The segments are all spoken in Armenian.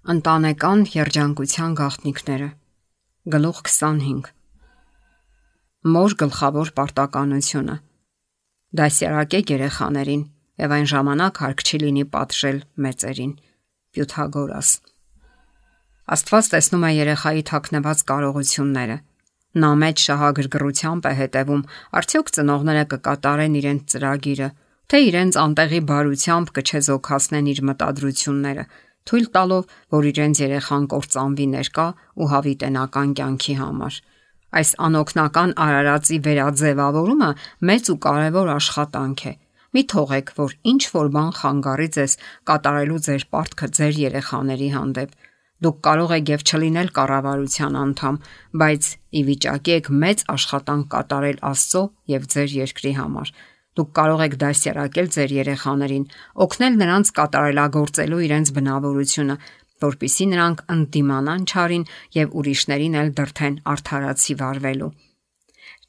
Ընտանեկան երջանկության գաղտնիքները։ Գլուխ 25։ Մոր գլխավոր պարտականությունը։ Դասյարակեք երեխաներին եւ այն ժամանակ հարկ չի լինի պատժել մեծերին։ Պյութագորաս։ Աստված տեսնում է երեխայի թաքնված կարողությունները։ Նա մեծ շահագրգռությամբ է հետևում, արդյոք ծնողները կկատարեն իրենց ծրագիրը, թե իրենց անտեղի բարությամբ կչեզոքացնեն իր մտադրությունները, թույլ տալով, որ իրենց երեխան կործանվի ներկա ու հավիտենական կյանքի համար։ Այս անօգնական արարածի վերաձևավորումը մեծ ու կարևոր աշխատանք է։ Մի թողեք, որ ինչ որ բան խանգարի ձեզ կատարելու ձեր պարտքը ձեր երեխաների հանդեպ։ Դուք կարող եք եւ չլինել կառավարության անդամ, բայց ի վիճակի եք մեծ աշխատանք կատարել Աստծո եւ ձեր երկրի համար։ Դուք կարող եք դասյարակել ձեր երեխաներին, օգնել նրանց կատարելագործելու իրենց բնավորությունը, որպիսի նրանք ընդդիմանան չարին եւ ուրիշներին էլ դրթեն արդարացի վարվելու։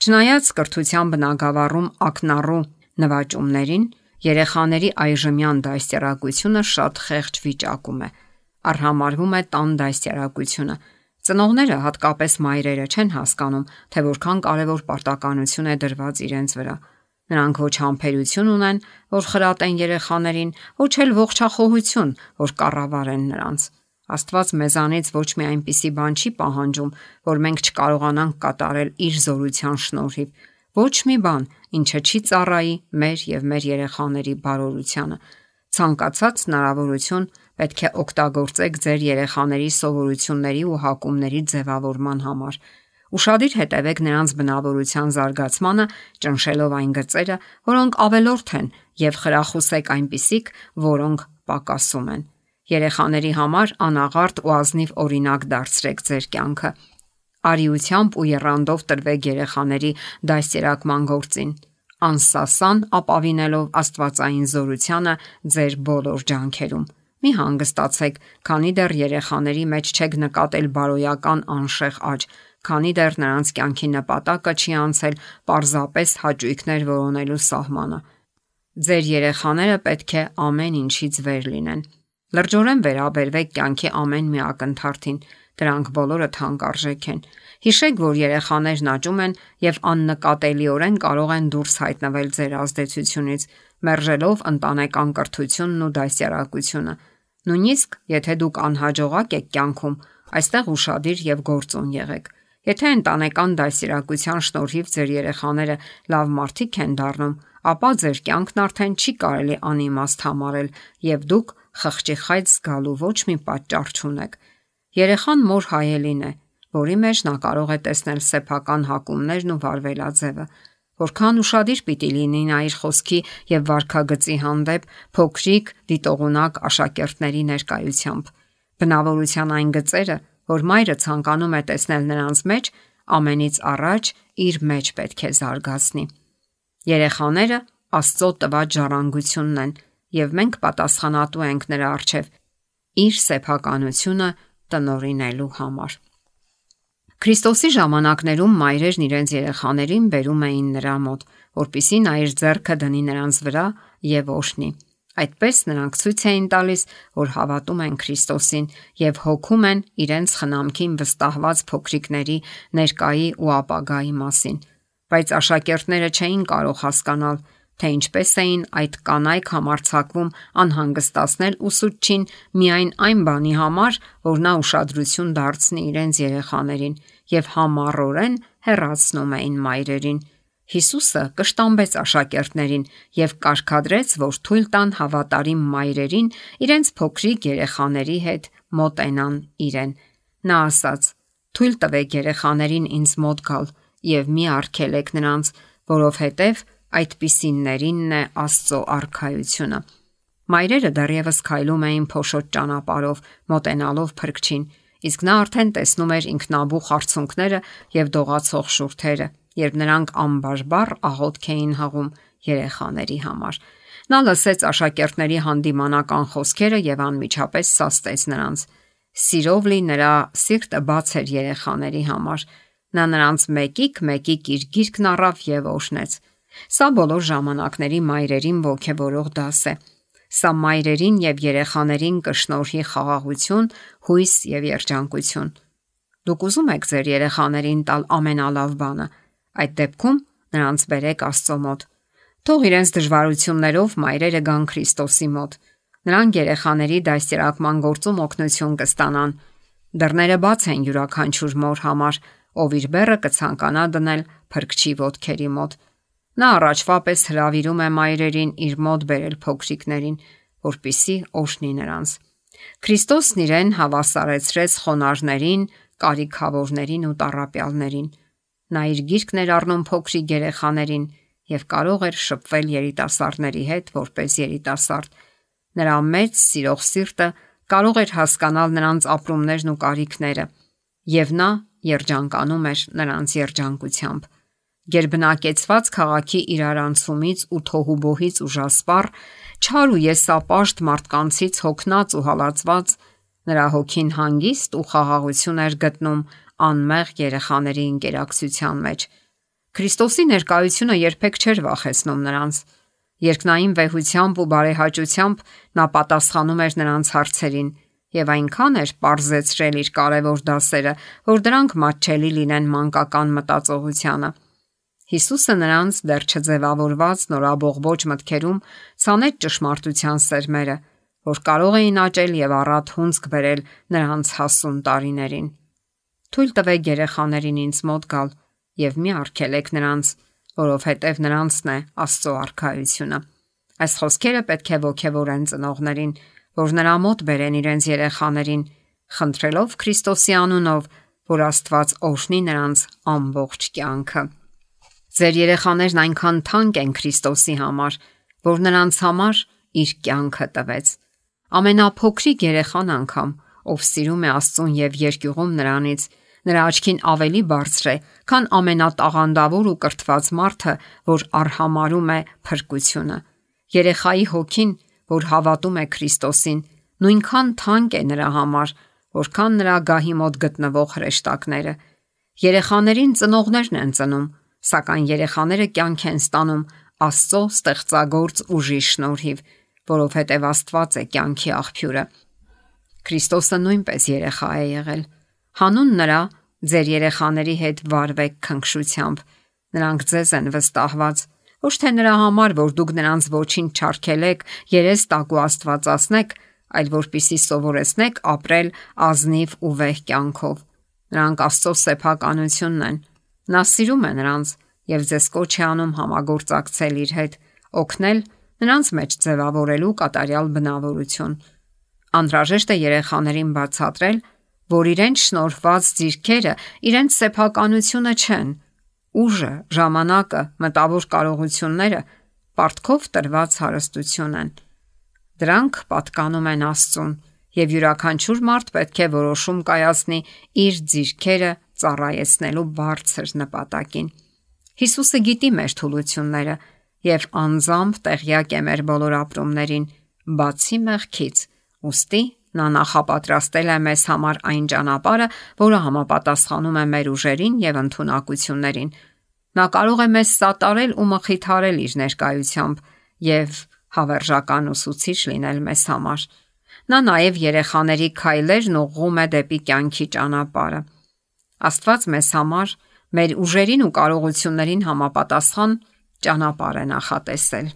Չնայած կրթության բնագավառում ակնառու նվաճումներին, երեխաների այժմյան դասյարակությունը շատ խեղճ վիճակում է։ Արհամարվում է տան դասյարակությունը։ Ծնողները, հատկապես մայրերը, չեն հասկանում, թե որքան կարևոր պարտականություն է դրված իրենց վրա։ Նրանք ոչ համբերություն ունեն, որ խրատեն երեխաներին, ոչ էլ ողջախոհություն, որ կառավարեն նրանց։ Աստված մեզանից ոչ մի այնպիսի բան չի պահանջում, որ մենք չկարողանանք կատարել իր զորության շնորհիվ։ Ոչ մի բան, ինչը չի ծառայի մեր եւ մեր երեխաների բարօրությանը։ Ցանկացած հնարավորություն պետք է օգտագործեք ձեր երեխաների սովորությունների ու հակումների ձևավորման համար։ Ուշադիր հետևեք նրանց բնավորության զարգացմանը, ճնշելով այն գծերը, որոնք ավելորդ են, եւ խրախուսեք այնպիսիք, որոնք պակասում են։ Երեխաների համար անաղարտ ու ազնիվ օրինակ դարձրեք ձեր կյանքը։ Արիությամբ ու եռանդով տրվեք երեխաների դասերակման գործին, անսասան ապավինելով աստվածային զորությանը ձեր բոլոր ջանքերում։ Մի հանգստացեք, քանի դեռ երեխաների մեջ չեք նկատել բարոյական անշեղ աճ, քանի դեռ նրանց կյանքի նպատակը չի անցել պարզապես հաճույքներ որոնելու սահմանը։ Ձեր երեխաները պետք է ամեն ինչից վեր լինեն։ Լրջորեն վերաբերվեք կյանքի ամեն մի ակնթարթին, դրանք բոլորը թանկարժեք են։ Հիշեք, որ երեխաներն աճում են եւ աննկատելիորեն կարող են դուրս հայտնվել ձեր ազդեցությունից, մերժելով ընտանեկան կրթությունն ու դասյարակությունը։ Նույնիսկ եթե դուք անհաջողակ եք կյանքում, այստեղ ուշադիր եւ գործուն եղեք։ Եթե ընտանեկան դասյարակության շնորհիվ ձեր երեխաները լավ մարդիկ են դառնում, ապա ձեր կյանքն արդեն չի կարելի անիմաստ համարել եւ դուք խղճի խայծ զգալու ոչ մի պատճառ չունեք։ Երեխան մոր հայելին է, որի մեջ նա կարող է տեսնել սեփական հակումներն ու վարվելաձևը։ Որքան ուշադիր պիտի լինի նա իր խոսքի եւ վարքագծի հանդեպ փոքրիկ դիտողունակ աշակերտների ներկայությամբ։ Բնավորության այն գծերը, որ մայրը ցանկանում է տեսնել նրանց մեջ, ամենից առաջ իր մեջ պետք է զարգացնի։ Երեխաները Աստծո տված ժառանգությունն են, եւ մենք պատասխանատու ենք նրա առջև իր սեփականությունը տնօրինելու համար։ Քրիստոսի ժամանակներում մայրերն իրենց երեխաներին բերում էին նրա մոտ, որպեսզի նա իր ձեռքը դնի նրանց վրա եւ օրհնի։ Այդպես նրանք ցույց էին տալիս, որ հավատում են Քրիստոսին եւ հոգում են իրենց խնամքին վստահված փոքրիկների ներկայի ու ապագայի մասին։ Բայց աշակերտները չէին կարող հասկանալ, թե ինչպես էին այդ կանայք համարձակվում անհանգստացնել ուսուցչին միայն այն բանի համար, որ նա ուշադրություն դարձնի իրենց երեխաներին եւ համառորեն հեռացնում էին մայրերին։ Հիսուսը կշտամբեց աշակերտներին եւ կարգադրեց, որ թույլ տան հավատարիմ մայրերին իրենց փոքրիկ երեխաների հետ մոտենան իրեն։ Նա ասաց. «Թույլ տվեք երեխաներին ինձ մոտ գալ եւ մի արգելեք նրանց, որովհետեւ այդպիսիններինն է Աստծո արքայությունը»։ Մայրերը դեռևս քայլում էին փոշոտ ճանապարհով, մոտենալով փրկչին, իսկ նա արդեն տեսնում էր ինքնաբուխ արցունքները եւ դողացող շուրթերը, երբ նրանք անբարբար աղոթք էին հղում երեխաների համար։ Նա լսեց աշակերտների հանդիմանական խոսքերը եւ անմիջապես սաստեց նրանց։ Սիրով լի նրա սիրտը բաց էր երեխաների համար։ Նա նրանց մեկիկ իր գիրկն առավ եւ օրհնեց։ Սա բոլոր ժամանակների մայրերին ոգևորող դաս է։ Սա մայրերին եւ երեխաներին կշնորհի խաղաղություն, հույս եւ երջանկություն։ Դուք ուզում եք ձեր երեխաներին տալ ամենալավ բանը։ Այդ դեպքում նրանց բերեք Աստծո մոտ։ Թող իրենց դժվարություններով մայրերը գան Քրիստոսի մոտ։ Նրանք երեխաների դաստիարակման գործում օգնություն կստանան։ Դռները բաց են յուրաքանչյուր մոր համար, ով իր բեռը կցանկանա դնել փրկչի ոտքերի մոտ։ Նա առաջվա պես հրավիրում է մայրերին իր մոտ բերել փոքրիկներին, որպիսի օժնի նրանց։ Քրիստոսն իրեն հավասարեցրեց խոնարհներին, կարիքավորներին ու տառապյալներին։ Նա իր գիրկն էր առնում փոքրիկ երեխաներին եւ կարող էր շփվել երիտասարդների հետ որպես երիտասարդ։ Նրա մեծ սիրող սիրտը կարող էր հասկանալ նրանց ապրումներն ու կարիքները, եւ նա երջանկանում էր նրանց երջանկությամբ։ Գերբնակեցված քաղաքի իրարանցումից ու թոհուբոհից ուժասպառ, չար ու եսապաշտ մարդկանցից հոգնած ու հալածված, նրա հոգին հանգիստ ու խաղաղություն էր գտնում անմեղ երեխաների ինտերակցիան մեջ։ Քրիստոսի ներկայությունը երբեք չէր վախեցնում նրանց։ Երկնային վեհությամբ ու բարեհաճությամբ նա պատասխանում էր նրանց հարցերին եւ այնքան էր պարզեցրել իր կարևոր դասերը, որ դրանք մատչելի լինեն մանկական մտածողությանը։ Հիսուսը նրանց դեռ չձևավորված նորաբողբոջ մտքերում ցանեց ճշմարտության սերմերը, որ կարող էին աճել եւ առատ հունձք բերել նրանց հասուն տարիներին։ Թույլ տվեք երեխաներին ինձ մոտ գալ եւ մի արգելեք նրանց, որովհետեւ նրանցն է Աստծո արքայությունը։ Այս խոսքերը պետք է ոգևորեն ծնողներին, որ նրա մոտ բերեն իրենց երեխաներին, խնդրելով Քրիստոսի անունով, որ Աստված օրհնի նրանց ամբողջ կյանքը։ Ձեր երեխաներն այնքան թանկ են Քրիստոսի համար, որ նրանց համար իր կյանքը տվեց։ Ամենափոքրիկ երեխան անգամ, ով սիրում է Աստծուն եւ երկյուղում նրանից, նրա աչքին ավելի բարձր է, քան ամենատաղանդավոր ու կրթված մարդը, որ արհամարում է փրկությունը։ Երեխայի հոգին, որ հավատում է Քրիստոսին, նույնքան թանկ է նրա համար, որքան նրա գահի մոտ գտնվող հրեշտակները։ Երեխաներին ծնողներն են ծնում, սակայն երեխաները կյանք են ստանում Աստծո ստեղծագործ ուժի շնորհիվ, որովհետև Աստված է կյանքի աղբյուրը։ Քրիստոսը նույնպես երեխա է եղել։ Հանուն նրա ձեր երեխաների հետ վարվեք քնքշությամբ։ Նրանք ձեզ են վստահված, ոչ թե նրա համար, որ դուք նրանց ոչինչ չարգելեք, երես տակ ու աստվածացնեք, այլ որպիսի սովորեցնեք ապրել ազնիվ ու վեհ կյանքով։ Նրանք Աստծո սեփականությունն են։ Նա սիրում է նրանց եւ ձեզ կոչ է անում համագործակցել իր հետ, օգնել նրանց մեջ ձևավորելու կատարյալ բնավորություն։ Անհրաժեշտ է երեխաներին բացատրել, որ իրենց շնորհված ձիրքերը իրենց սեփականությունը չեն։ Ուժը, ժամանակը, մտավոր կարողությունները պարտքով տրված հարստություն են։ Դրանք պատկանում են Աստծուն, եւ յուրաքանչյուր մարդ պետք է որոշում կայացնի իր ձիրքերը ծառայեցնելու բարձր նպատակին։ Հիսուսը գիտի մեր թուլությունները եւ անձամբ տեղյակ է մեր բոլոր ապրումներին, բացի մեղքից, ուստի նա նախապատրաստել է մեզ համար այն ճանապարհը, որը համապատասխանում է մեր ուժերին եւ ընդունակություններին։ Նա կարող է մեզ սատարել ու մխիթարել իր ներկայությամբ եւ հավերժական ուսուցիչ լինել մեզ համար։ Նա նաև երեխաների քայլերն ուղղում է դեպի կյանքի ճանապարհը։ Աստված մեզ համար մեր ուժերին ու կարողություններին համապատասխան ճանապարհ է նախատեսել։